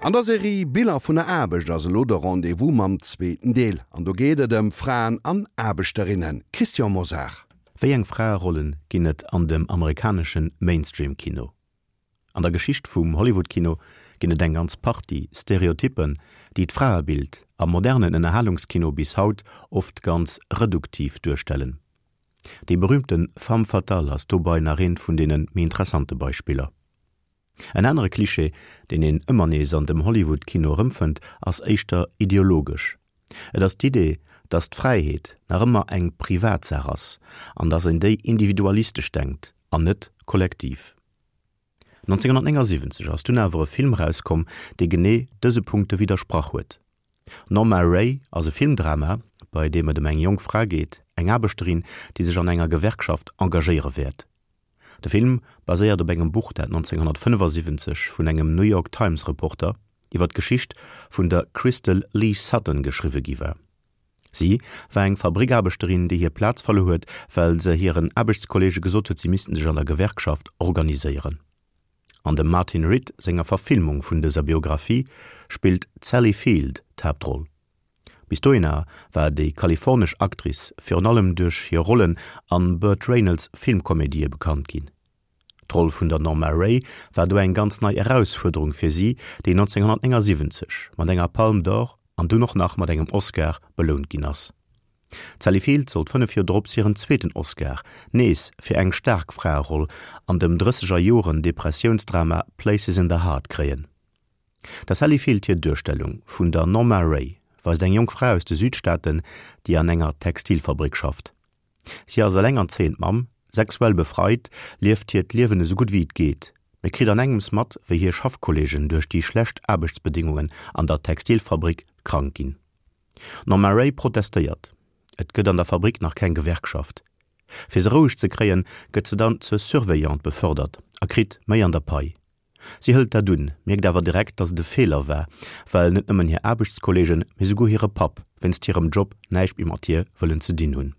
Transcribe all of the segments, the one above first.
An der Serie Biller vun der Aarbecht ass elo de Rendez-vous mam zweeten Deel. An do geet et ëm Fraen an Aarbechterinnen. Christian Mosar. Wéi eng Fraerollen ginn et an dem amerikanesche Mainstream-Kino? An der Geschicht vum Hollywood-Kino ginn et eng ganz Partie Stereotyppen, déi d'Fraebild am modernen Ënnerhalungskino bis haut oft ganz reduktiv duerstellen. Déi berüümte Femme fatale ass dobei nach eent vun deene méi interessante Beispiller. En anere Cliché, deen een ëmmer nees an dem Hollywood-Kino erëmfënnt, ass éischter ideologesch. Et ass d'Idee, dass d'Fräiheet nach ëmmer eng Privatsaach ass an dass een déi individualistesch denkt an net kollektiv. 1979 ass dunn awer e Film erauskomm, dee genee dëse Punkte widdersprach huet. Norma Rae ass e Filmdrama, bei deem et ëm eng jonk Fra geet, eng Aarbechterin, déi sech an enger Gewerkschaft engagéiere wäert. De Film baséiert op engem Buch, dat 1975 vun engem New York Times Reporter iwwer d'Geschicht vun der Crystal Lee Sutton geschriwwe gi war. Si war eng Fabrickaarbechterin, déi hir Plaz verluer huet, well se hiren Aarbechtskolleege gesot huet, si missten sech an der Gewerkschaft organiséieren. An dem Martin Ritt senger Verfilmung vun dëser Biographie spillt d'Sally Field d'Haaptroll. Bis dohinner war déi kalifornesch Actrice virun allem duerch hir Rollen an Burt Reynolds Filmkomedië bekannt ginn. D'Roll vun der Norma Rae war do eng ganz nei Erausfuerderung fir si, déi 1979 mat enger Palme d'Or an dunn och nach mat engem Oscar belount ginn ass. D'Sally Field sollt 5 Joer drops hiren zweeten Oscar, nees fir eng staark Fraeroll an dem drësseger Joren Depressiounsdrama Places in the Heart kréien. Der Sally Field hir Duerstellung vun der Norma Rae weist eng jonk Fra aus de Südstaaten, déi an enger Textilfabrik schafft. Si ass elengerzéiend Mamm, sexuell befreit, lieft hiert Liewen esou gutt wéi et geet, mee kritt an engems mat, wéi hir Schaffkolleegen duerch déi schlecht Aarbechtsbedingungen an der Textilfabrik krank ginn. D'Norma Rae protestéiert. Et gëtt an der Fabrik nach keng Gewerkschaft. Fir se roueg ze kréien, gëtt se dann zur Surveillante befördert a kritt méi an der Pai. Si hëlt dat un, mierkt awer direkt, datt et e Feeler war, well net nëmmen hir Aarbechtskolleegen, mee souguer hire Papp wéinst hirem Job näischt méi mat hir wëllen ze dinn hunn.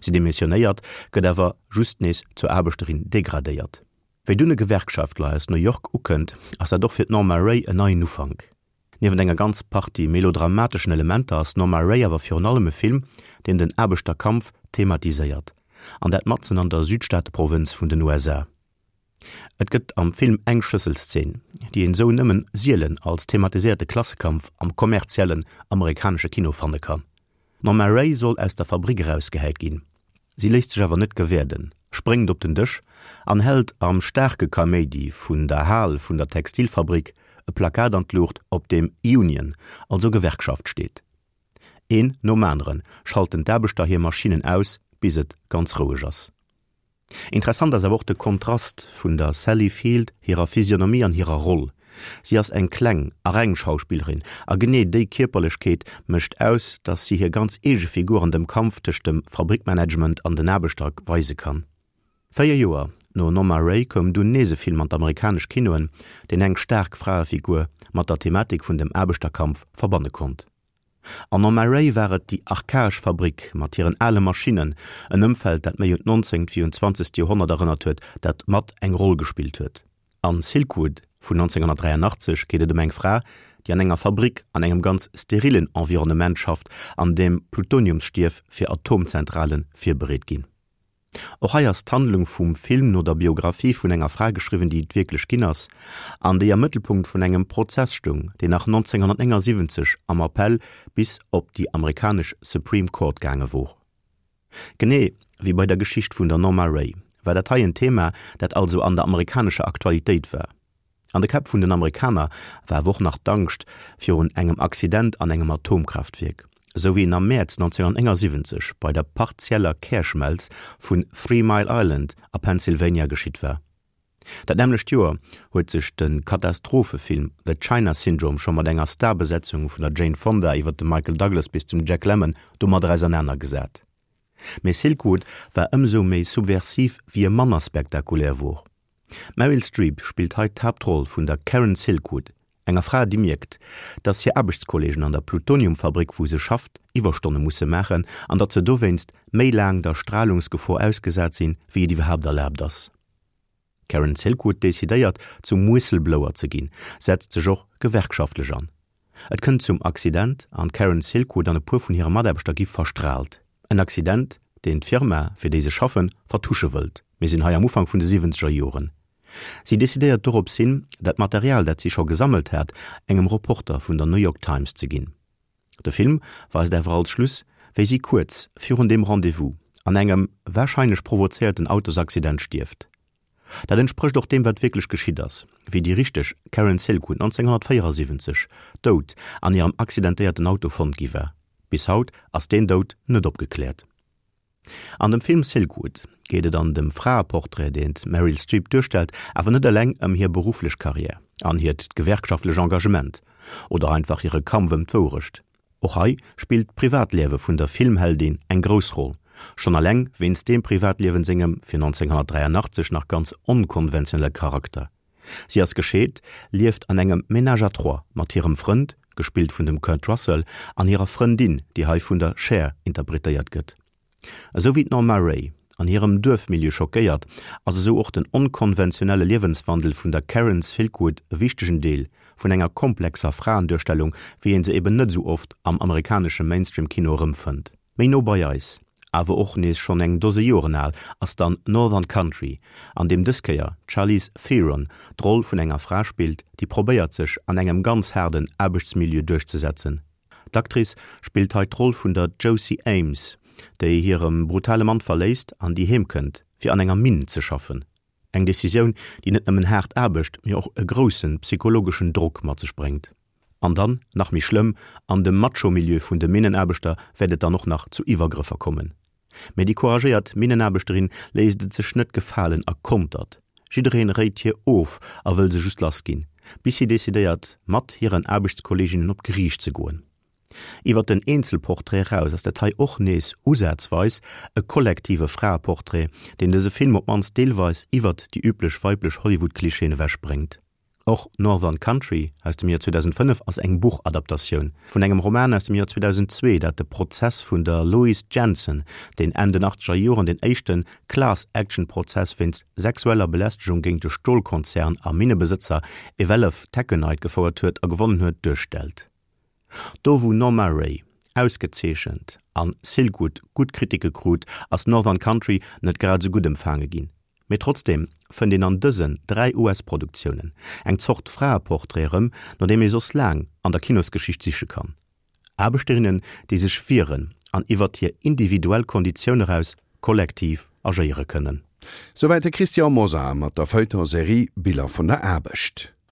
Si demissionéiert, gëtt awer just nees zur Aarbechterin degradéiert. Wéi dunn e Gewerkschaftler aus New York ukënnt, ass dat och fir d'Norma Rae en neien Ufank. Niewent enger ganz Partie melodramateschen Elementer ass Norma Rae awer virun allem e Film, deen den Aarbechterkampf thematiséiert, an dat matzen an der Südstaateprowënz vun den USA. Et gëtt am Film eng Schlësselszeen, déi een esou nëmmen sielen als thematiséierte Klassekampf am kommerziellen amerikanesche Kino fanne kann. D'Norma Rae soll aus der Fabrick erausgehäit ginn. Si léisst sech awer net gewäerden, spréngt op den Dësch an hält am staarke Kaméidi vun der Hal vun der Textilfabrik e Plakat an d'Luucht, op deem Union, also Gewerkschaft steet. Een nom anere schalten d'Aarbechter hir Maschinnen aus, bis et ganz roueg ass. Interessant ass awer och de Kontrast vun der Sally Field hirer Physionomie an hirer Roll. Si ass eng kleng a reng Schauspillerin a genee déi Kierperlechkeet mécht aus, datt si hir ganz eege Figur an dem Kampf tëscht dem Fabrickmanagement an den Aarbechter weise kann. 4 Joer no Norma Rae koum dunn nees e Film an d'amerikanesch Kinoen, deen eng staark Fraefigur mat der Thematik vun dem Aarbechterkampf verbanne konnt. An Norma Rae war et déi archaesch Fabrik mat hiren ale Maschinnen, en Ëmfeld, dat méi un d'nonzéngt wéi un d'zwanzegt Joerhonnert erënnert huet, dat mat eng Roll gespillt huet. An Silkwood vun 1983 geet et ëm eng Fra, déi an enger Fabrik an engem ganz sterillen Environnement schafft, an deem Plutoniumsstief fir Atomzentrale virbereet ginn. Och hei ass d'Handlung vum Film no der Biographie vun enger Fra geschriwwen, déi et wierklech ginn ass, an déi am Mëttelpunkt vun engem Prozess stoung, deen nach 1979 am Appell bis op déi amerikanesch Supreme Court gaange wor. Genee wéi bei der Geschicht vun der Norma Rae war dat hei en Thema, dat also an der amerikanescher Aktualitéit war. An de Käpp vun den Amerikaner war awer och nach d'Angscht virun engem Accident an engem Atomkraaftwierk, esou wéi en am Mäerz 1979 bei der partieller Kärschmelz vun Three Mile Island a Pennsylvania geschitt war. Dat nämmlecht Joer huet sech de Katastrophefilm The China Syndrome scho mat enger Starbesetzung vun der Jane Fonda iwwer de Michael Douglas bis zum Jack Lemmon domadder ausernanergesat. Mee Silkwood war ëmsou méi subversiv wéi e manner spektakulär wor. D'Meryl Streep spillt hei d'Haaptroll vun der Karen Silkwood, enger Fra, déi mierkt, dass hir Aarbechtskolleegen an der Plutoniumfabrik, wou se schafft, Iwwerstonne musse maachen an datt se dowéinst méi laang der Stralungsgefor ausgesat sinn, wéi et iwwerhaapt erlaabt ass. D'Karen Silkwood decidéiert, zum Whistleblower ze ginn, setzt sech och gewerkschaftlech an. Et kënnt zum Accident an d'Karen Silkwood an e puer vun hire Mataarbechter gi verstraalt. En Accident, deen d'Firma, fir déi se schaffen, vertusche wëllt. Mir sinn hei am Ufank vun de siwwenzeger Joren. Si decidéiert dorops hin, dat Material, dat si scho gesammelt hat, engem Reporter vun der New York Times ze ginn. De Film weist awer als Schluss, wéi si kuerz virun deem Rendez-vous an engem warscheinlech provozéierten Autosaccident stierft. Dat entsprécht och deem, wat wierklech geschitt ass, wéi déi richteg Karen Silkwood 1974 dout an hirem accidentéierten Auto fonnt gi war. Bis haut ass deen Doud net opgekläert. An dem Film Silkwood geet et an dem Fraeportrait, deen d'Meryl Streep duerstellt, awer net eleng ëm hir berufflech Karriär an hiert gewerkschaftlech Engagement oder einfach hire Kampf ëm d'Wourecht. Och hei spillt d'Privatliewe vun der Filmheldin eng grouss Roll, schonn eleng wéinst deem Privatliewen sengem fir 1983 nach ganz onkonventionelle Charakter. Si ass gescheet, lieft an engem Ménage à trois mat hirem Frënd, gespillt vun dem Kurt Russell, an hirer Frëndin, déi hei vun der Cher interpretéiert gëtt. Esou wéi d'Norma Rae an hirem Duerfmilieu schockéiert, ass esou och den onkonventionelle Liewenswandel vun der Karen Silkwood e wichtegen Deel vun enger komplexer Fraenduerstellung, wéi een se eben net esou oft am amerikanesche Mainstream-Kino erëmfënnt. Méi no bei eis, awer och nees schonn eng Dose Joren al, ass dann Northern Country, an deem dës Kéier d'Charlize Theron d'Roll vun enger Fra spillt, déi probéiert sech an engem ganz haarden Aarbechtsmilieu duerchzesetzen. D'Actrice spillt hei d'Roll vun der Josie Ames, déi hire brutale Mann verléisst an déi heem kënnt, fir an enger Minn ze schaffen. Eng Decisioun, déi net nëmmen haart Aarbecht, mee och e grousse psychologeschen Drock mat sech bréngt. An dann, nach méi schlëmm, an dem Macho-Milieu vun de Minnenaarbechter wäert et dann och nach zu Iwwergrëffer kommen. Mee déi couragéiert Minnenaarbechterin léisst et sech net gefalen a kontert. Jiddereen réit hir of a wëll se just lass ginn, bis si decidéiert, mat hiren Aarbechtskolleeginnen op d'Geriicht ze goen. Iwwer den Eenzelportrait eraus ass dat hei och nees usazweis e kollektive Fraeportrait, deen dëse Film op d'mannst deelweis iwwert déi üblech weiblech Hollywood-Klischeeën ewech bréngt. Och Northern Country aus dem Joer 2005 ass eng Buchadaptatioun vun engem Roman aus dem Joer 2002, dat de Prozess vun der Louise Jensen, deen Enn den achtzeger Joren den éischte Class-Action-Prozess wéinst sexueller Belästegung géint de Stolkonzern a Minnebesëtzer Eveleth Taconite gefouert huet a gewonnen huet, duerstellt. Do wou Norma Rae ausgezeechent an Silkwood gutt Kritike krut, ass Northern Country net grad esou gutt empfaange ginn. Mee trotzdeem fënnt een an dësen 3 US-Produktiounen eng Zort Fraeportrait erëm, no deem ee soss laang an der Kinosgeschicht siche kann. Aarbechterinnen, déi sech wieren an iwwert hir individuell Konditioun eraus kollektiv agéiere kënnen. Souwäit de Christian Mosar mat der Feuilleton-Serie Biller vun der Aarbecht.